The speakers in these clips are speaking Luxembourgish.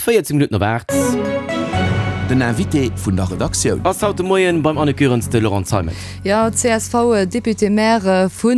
14 Minutten op 8. Den Invité vun der Redaktioun. Ass haut de Moien beim Anne Goerens de Laurent Zeimet. Jo, CSV-Député-Maire vu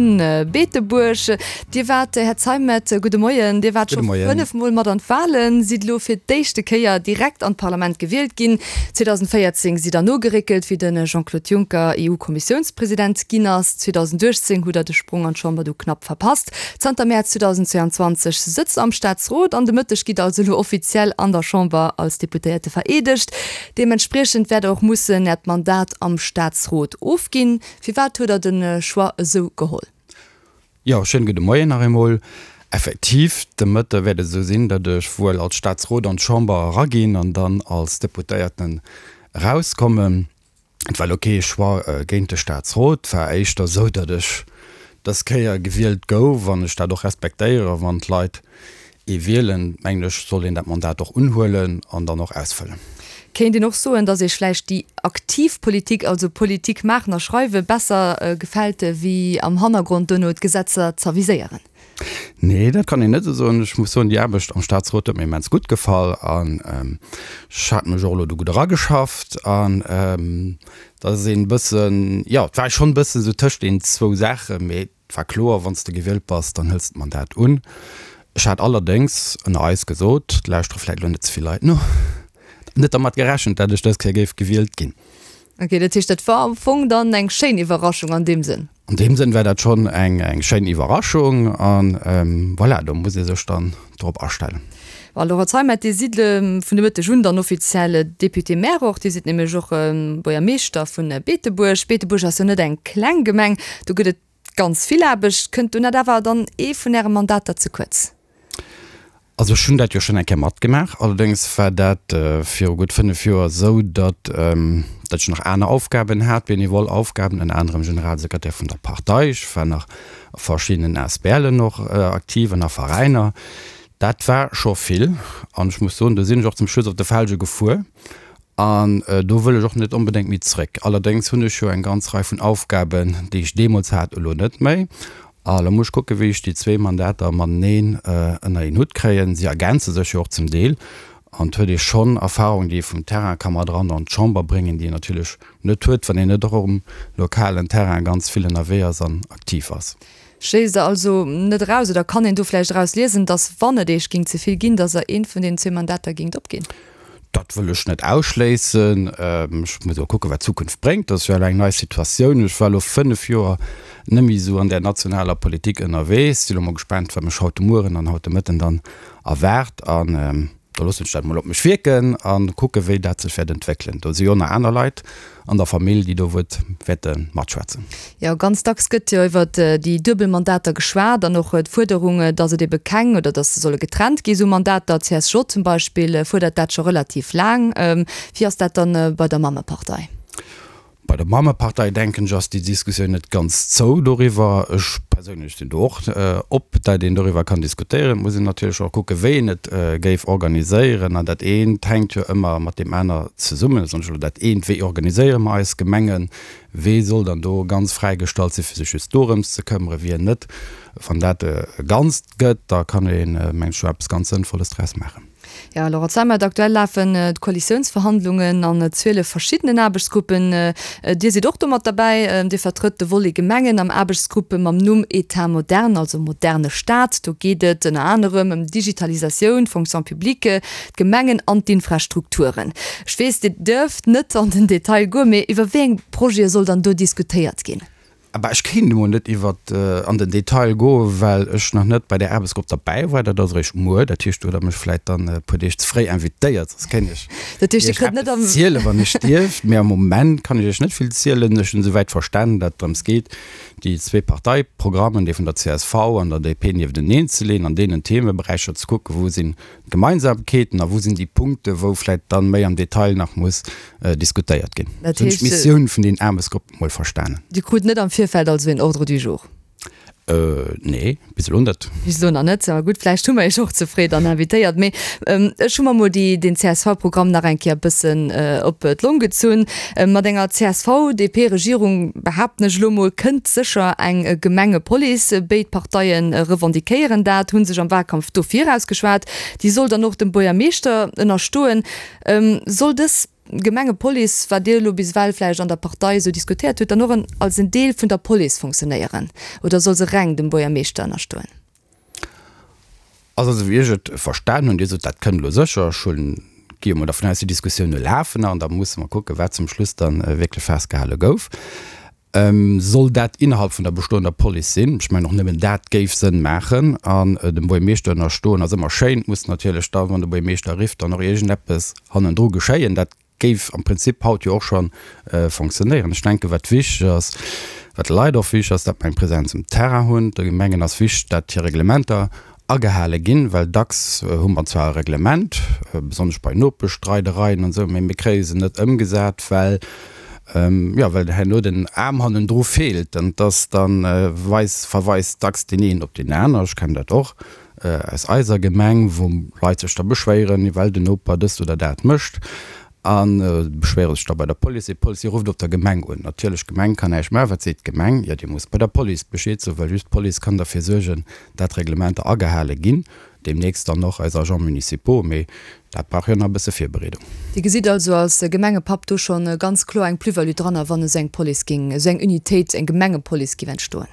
Beetebuerg. Dir waart, Här Zeimet, gudde Moien, Dir waart scho 5 Mol mat an d'Wahlen, sidd elo fir d'éischte Kéier direkt an d'Parlament gewielt ginn. 2014 sidd Der nogeréckelt, wéi de Jean-Claude Juncker EU-Kommissiounspresident ginn ass. 2018 hutt Der de Sprong an d'Chamber du knapp verpasst. Zanter Mäerz 2022 sëtzt am Staatsrot an de Mëtteg gitt also elo offiziell an der Chamber als Deputéierte vereedegt. Deementspriechend wäert Der och mussen Äert Mandat am Staatsrot ofginn. Firwat huet Der de Choix esou geholl? Jo, schéine gudde Moien nach eemol. Effektiv, de Mëtte wäert et esou sinn, datt ech wuel als Staatsrot an d'Chamber eraginn an dann als Deputéierten erauskommen. Et war elo kee Choix géint de Staatsrot, et war éischter esou, datt ech dës Kéier gewielt gouf an ech dat och respektéieren. Wann d'Leit ee wielen, mengen ech, soll een dat Mandat och unhuelen an dann och ausfëllen. Kéint een och soen, datt Iech vläicht déi aktiv Politik, also Politik maachen a schreiwen, besser gefält, wéi am Hannergrond duerno d'Gesetzer z'aviséieren? Nee, dat kann een net esou soen. Ech muss soen, déi Aarbecht am Staatsrot huet mir immens gutt gefall an ech hat mech och elo do gutt erageschafft an dat ass een bëssen, jo, et war schonn e bëssen esou tëscht den zwou Saachen, mee et war kloer, wann s de gewielt bass, dann hëls de d'Mandat un. Ech hat allerdéngs, ënner eis gesot, et lauschtere vläicht elo net ze vill Leit no, net dermat gerechent, dat ech dës Kéier géif gewielt ginn. Ok, dat heescht, dat war am Fong dann eng schéin Iwwerraschung an deem Sënn? An deem Sënn war dat schonn eng eng schéin Iwwerraschung an voilà, do muss ee sech dann drop astellen. Bon, Laurent Zeimet, Dir sidd vun de Mëtteg un dann offiziell Député-maire och. Dir sidd nämlech och Buergermeeschter vu Beetebuerg. Beetebuerg ass jo net eng kleng Gemeng, do gëtt et ganz vill Aarbecht. Kënnt do net awer dann ee vun Äre Mandater ze kuerz? Also ech hunn dat jo schonn eng Kéier matgemaach, allerdéngs war dat viru gutt 5 Joer esou, datt datt ech nach aner Aufgaben hat, benevol Aufgaben, ënner anerem Generalsekretär vun der Partei, ech war nach a verschiddenen ASBLen och aktiv an a Veräiner. Dat war scho vill an ech muss soen, do sinn ech och zum Schluss op de Felge gefuer An do wëll ech och net onbedéngt méi zréck. Allerdéngs hunn ech jo eng ganz Rei vun Aufgaben, déi ech deemools hat, elo net méi. A lo muss ech kucken, wéi ech déi zwee Mandater mateneen ënner een Hutt kréien. Si ergänze sech jo och zum Deel. An et huet ee schonn Erfahrung, déi ee vum Terrain ka mat eran an d'Chamber bréngen, déi een natierlech net huet, wann een net och um lokalen Terrain ganz vill ënnerwee ass an aktiv ass. Schléisst Der also net eraus, oder kann een do vläicht eraus liesen, datt, wann et Iech géing ze vill ginn, datt Der eent vun deenen zwee Mandater géingt opginn? Dat wëll ech net ausschléissen. Ech muss elo kucken, wat d'Zukunft bréngt. Dat ass jo elo eng nei Situatioun. Ech war elo 5 Joer net méi esou an där nationaler Politik ënnerwee. Sinn elo mol gespaant, wat mech haut de Mueren an haut de Mëtten dann erwaart. An da loossen ech dat mol op mech wierken a kucken, wéi dat sech wäert entwéckelen. Do si jo nach aner Leit an der Famill, déi do wuert wäerte matschwätzen. Jo, ganz dacks gëtt jo iwwer déi duebel Mandater geschwat an och d'Fuerderung, datt et ebe keng oder datt se solle getrennt gi sou Mandater. D'CSJ zum Beispill fuerdert dat scho relativ laang. Wéi ass dat dann bei der Mammepartei? Bei der Mammepartei, denken ech, ass déi Diskussioun net ganz zou doriwwer. Ech perséinlech sinn do och op, datt een doriwwer kann diskutéieren. Et muss een natierlech och kucken, wéi een et géif organiséieren. An dat eent hänkt jo ëmmer mat deem aner zesummen. Besonnesch elo dat eent, wéi organiséiere mer eis Gemengen, wee soll dann do ganz fräigestallt sinn, fir sech just dorëms ze këmmere, wien net. Wann dat e Ganzt gëtt, da kann een, mengen ech, do eppes ganz Sënnvolles draus maachen. Jo, Laurent Zeimet, aktuell lafen d'Koalitiounsverhandlungen an 12 verschiddenen Aarbechtsgruppen. Dir sidd och do mat derbäi. Dir vertrëtt de Volet Gemengen am Aarbechtsgrupp mam Numm État moderne, also moderne Staat. Do geet et ënner anerem ëm d'Digitalisatioun, d'Fonction publique, d'Gemengen an d'Infrastrukturen. Ech weess, Dir duerft net an den Detail goen, mee iwwer wéi eng Projete soll dann do diskutéiert ginn? Bah, ech kéint emol net iwwer an den Detail goen, well ech nach net bei där Aarbechtsgrupp derbäi war. Dat ass eréischt muer. Dat heescht, do hutt Der mech vläicht dann e puer Deeg ze fréi invitéiert, soss kéint ech Dat heescht, Dir Iech kritt net eppes am. zielen, wann ech dierft. Mee am Moment kann ech Iech net vill zielen. Ech hunn esouwäit verstanen, datt et drëms geet, déi zwee Parteiprogrammen, dee vun der csv an der DP, niefteneen ze leeën, an deenen Themeberäicher ze kucken, wou sinn d'Gemeinsamkeeten a wou sinn déi Punkte, wou vläicht dann méi am Detail nach muss diskutéiert ginn. Dat Hunn ech heescht. d'Missioun vun den Aarbechtsgruppen mol verstanen. Dir krut net am Virfeld also een Ordre du jour? Nee, bis elo net. Bis elo nach net. Ma gutt, vläicht hu mer Iech och ze fréi dann invitéiert. Mee ech hu mer mol déi, den CSV-Programm nach eng Kéier e bëssen op d'Long gezunn. Mat enger CSV-DP-Regierung, behaapten ech elo mol, kënnt sécher eng Gemengepolice. Béid Parteie revendiquéieren dat, hu sech am Wahlkampf dofir ausgeschwat. Déi soll dann och dem Buergermeeschter ënnerstoen. Soll dës Gemengepolice, wat Dir elo bis ewell vläicht an der Partei esou diskutéiert hutt, dann och en als en Deel vun der Police funktionéieren oder soll se reng dem Buergermeeschter ënnerstoen? Also esou wéi ech et verstan hunn, Dir sot, dat kënnt elo sécher, ech hunn, gi jo mol dervun aus, déi Diskussioune lafen nach an da musse mer kucken, wat zum Schluss dann wierklech festgehale gouf. Soll dat innerhalb vun der bestoender Police sinn? Ech mengen, och nëmmen dat géif Sënn maachen. An dem Buergermeeschter ënnerstoen ass ëmmer schéin. Et muss natierlech da, wann de Buergermeeschter rifft, dann och iergendeppes hannendru geschéien. Dat géif am Prinzip haut jo och scho fonctionnéieren. Ech denken, wat wichteg ass, wat de Leit och wichteg ass, datt mer eng Präsenz um Terrain hunn. De Gemengen ass wichteg, datt hir Reglementer agehale ginn, well dacks hu mer zwar e Reglement, besonnesch bei Nopeschstreidereien an esou, mee mir kréie se net ëmgesat, well, jo, well herno den Aarm hannendru feelt an dass dann weis, verweist dacks deen een op deen aner. Ech kennen dat och aus eiser Gemeng, wou Leit sech da beschwéieren, well den Noper dëst oder dat mécht. A beschwéiere sech da bei der Police. Déi Police rufft op der Gemeng un. Natierlech, d'Gemeng kann näischt maachen. Wat seet d'Gemeng? Jo, Dir musst bei der Police Bescheed soen, well just d'Police kann derfir suergen, dat Reglementer agehale ginn. Deemnächst dann och eis Agents municipaux, mee dat brauch jo nach e bësse Virbereedung. Dir gesitt also als Gemengepapp do scho ganz kloer eng Plus-value dranner, wann esou eng Police géing, esou eng Unitéit, eng Gemengepolice géif entstoen?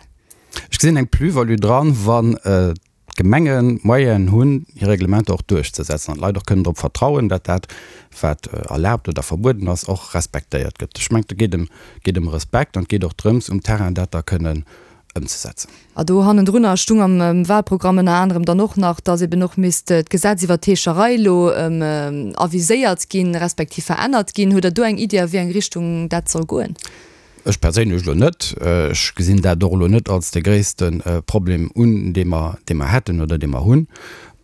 Ech gesinn eng Plus-value dran, wann d'Gemengen d'Moyenen hunn, hir Reglementer och duerchzesetzen an d'Leit och kënnen drop vertrauen, datt dat, wat erlaabt oder verbueden ass, och respektéiert gëtt. Ech mengen, et geet ëm, geet ëm Respekt an et geet och drëms, um Terrain dat da kënnen ëmzesetzen. A do hannendrunner stung am Wahlprogramm ënner anerem dann och nach, datt eben och misst d'Gesetz iwwert d'Heescherei elo aviséiert ginn, respektiv verännert ginn. Hutt Der do eng Iddi, a wéi eng Richtung dat soll goen? Ech perséinlech elo net. Ech gesinn dat och elo net als de gréisste Problem un, dee mer, dee mer hätten oder dee mer hunn.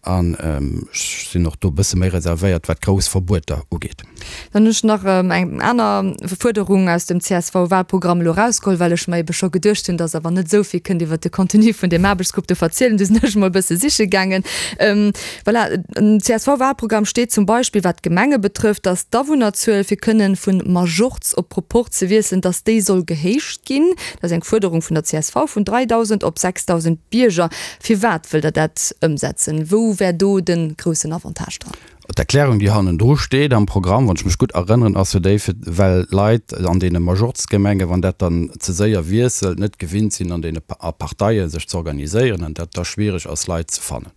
An ech sinn och do e bësse méi reservéiert, wat grouss Verbueter ugeet. Dann hunn ech nach eng aner Fuerderung aus dem CSV-Wahlprogramm elo erausgeholl, well ech mer ebe scho geduecht hunn, dass Der awer net esou vill kënnt iwwert de Contenu vun deem Aarbechtsgrupp do verzielen. Du sinn ech emol e bësse siche gaangen. Voilà, am CSV-Wahlprogramm steet zum Beispill, wat d'Gemenge betrëfft, dass d'Awunnerzuel, fir kënnen vun Majorz op Proporz ze wiesselen, dass déi soll gehéicht ginn. Dat ass eng Fuerderung vun der csv, vun 3.000 op 6.000 Bierger. Firwat wëllt Der dat ëmsetzen? Wou wär do de groussen Avantage dran? D'Erklärung, déi hannendru steet am Programm, wann ech mech gutt erënneren, ass jo déi, fir well d'Leit an deene Majorzgemengen, wann dat dann ze séier wiesselt, net gewinnt sinn an deene a Parteie sech ze organiséieren an dat da schwiereg ass, Leit ze fannen.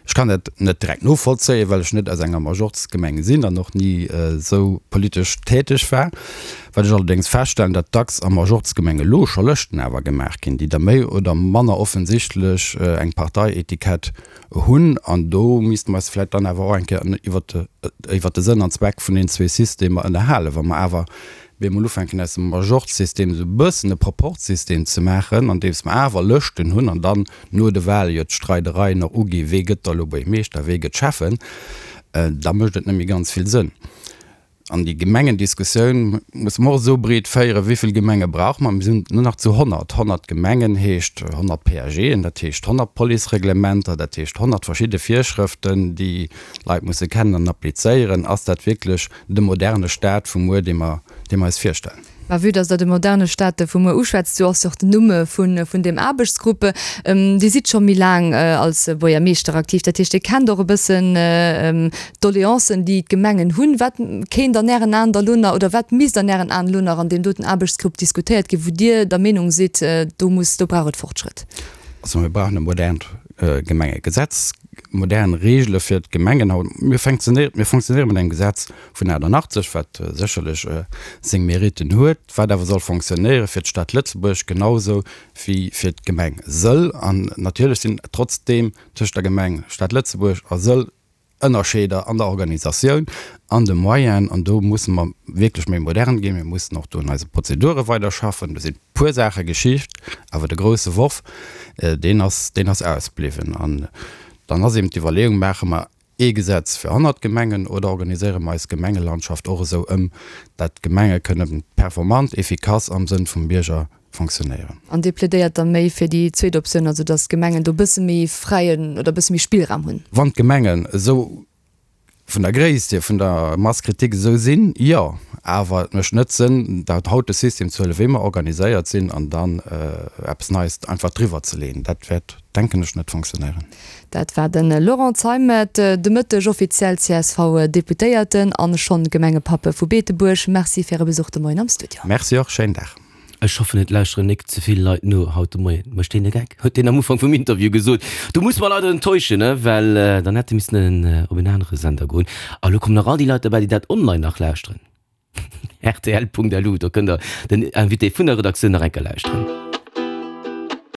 Ech kann dat net direkt novollzéien, well ech net aus enger Majorzgemeng sinn an och ni esou politesch täteg war. Wat ech allerdéngs feststellen, datt dacks a Majorzgemenge lo scho Lëschten awer gemaach ginn, déi da méi oder manner offensichtlech eng Parteietikett hunn. An do misste mer eis vläicht dann awer och eng Kéier iwwert de Sënn an Zweck vun deenen zwee Systemer ënnerhalen, wa mer awer bemol ufänken aus dem Majorzsystem esou e bëssen e Proporzsystem ze maachen, andeems mer awer Lëschten hunn an dann no de Wahle jo d'Streidereien och ugi wee gëtt da elo Buergmeeschter, wee gëtt Schäffen, da mécht et net méi ganz vill Sënn. An déi Gemengendiskussioun musse mer och esou breet féieren, wéi vill Gemenge brauche mer? Mir sinn elo nach zu 100. 100 Gemengen heescht 100 PAGen, dat heescht 100 Policereglementer, dat heescht 100 verschidde Virschrëften, déi d'Leit musse kennen an applizéieren. Ass dat wierklech de moderne Staat vu muer, dee mer, dee mer eis virstellen. Mä vue dass Der de moderne Staat vu muer uschwätzt, sou ass jo och den Numm vun, vun deem Aarbechtsgrupp. Dir sidd scho méi laang als Buergermeeschter aktiv, dat heescht, Dir kennt och e bëssen d'Doleancen, déi d'Gemengen hunn. Wat kéint an Ären Aen da lo nach, oder wat misst an Ären Aen elo nach an deem doten Aarbechtsgrupp diskutéiert ginn, wou Dir der Meenung sidd, do muss, do brauch et Fortschrëtt? Also mir brauchen e modernt Gemengegesetz, modern Reegele fir d'Gemengen. Haut, mir funktionéieren, mir funktionéiere mat engem Gesetz vun 88, wat sécherlech seng Meritten huet, wat awer soll fonctionnéiere fir d'Stad Lëtzebuerg genausou wéi fir d'Gemeng Sëll. An natierlech sinn trotzdeem tëscht der Gemeng Stad Lëtzebuerg a Sëll Ënnerscheeder an der Organisatioun, an de Moyenen. An do musse mer wierklech méi modern ginn. Mir mussen och do un eise Prozedure weiderschaffen. Do sinn e puer Saache geschicht, awer de grousse Worf, deen ass, deen ass ausbliwwen. An dann ass eben d'Iwwerleeung, Maache mer ee Gesetz fir 100 Gemengen oder organiséiere mer eis Gemengelandschaft och esou ëm, dat d'Gemenge kënne performant, efficace am Sënn vum Bierger. fonctionnéieren. An Dir plädéiert da méi fir déi zweet Optioun, also datt d'Gemengen do e bësse méi fräien oder e bësse méi Spillraum hunn? Wann d'Gemengen esou vun der Gréisst hier, vun der Masse critique esou sinn, jo. Awer et mécht net Sënn, dat haut de System ze huelen, wéi mer organiséiert sinn, an dann eppes Neies einfach driwwer ze leeën. Dat wäert, denken ech, net fonctionnéieren. Dat war de Laurent Zeimet, de Mëtteg offiziell CSV-Deputéierten an schonn Gemengepapp vu Beetebuerg. Merci fir Äre Besuch de Moien am Studio. Merci och, schéinen Dag. Ech hoffen et lauschteren nik ze vill Leit no haut de Moien. Mécht deen e Geck? Huet deen am Ufank vum Interview gesot. Do muss mer leider enttäuschen, ne, well dann hätt e missen op en anere Sender goen. A lo kommen nach all déi Leit derbäi, déi dat online nach lauschteren. Rtl.lu, do kënnt der den Invité vun der Redaktioun nach eng Kéier lauschteren.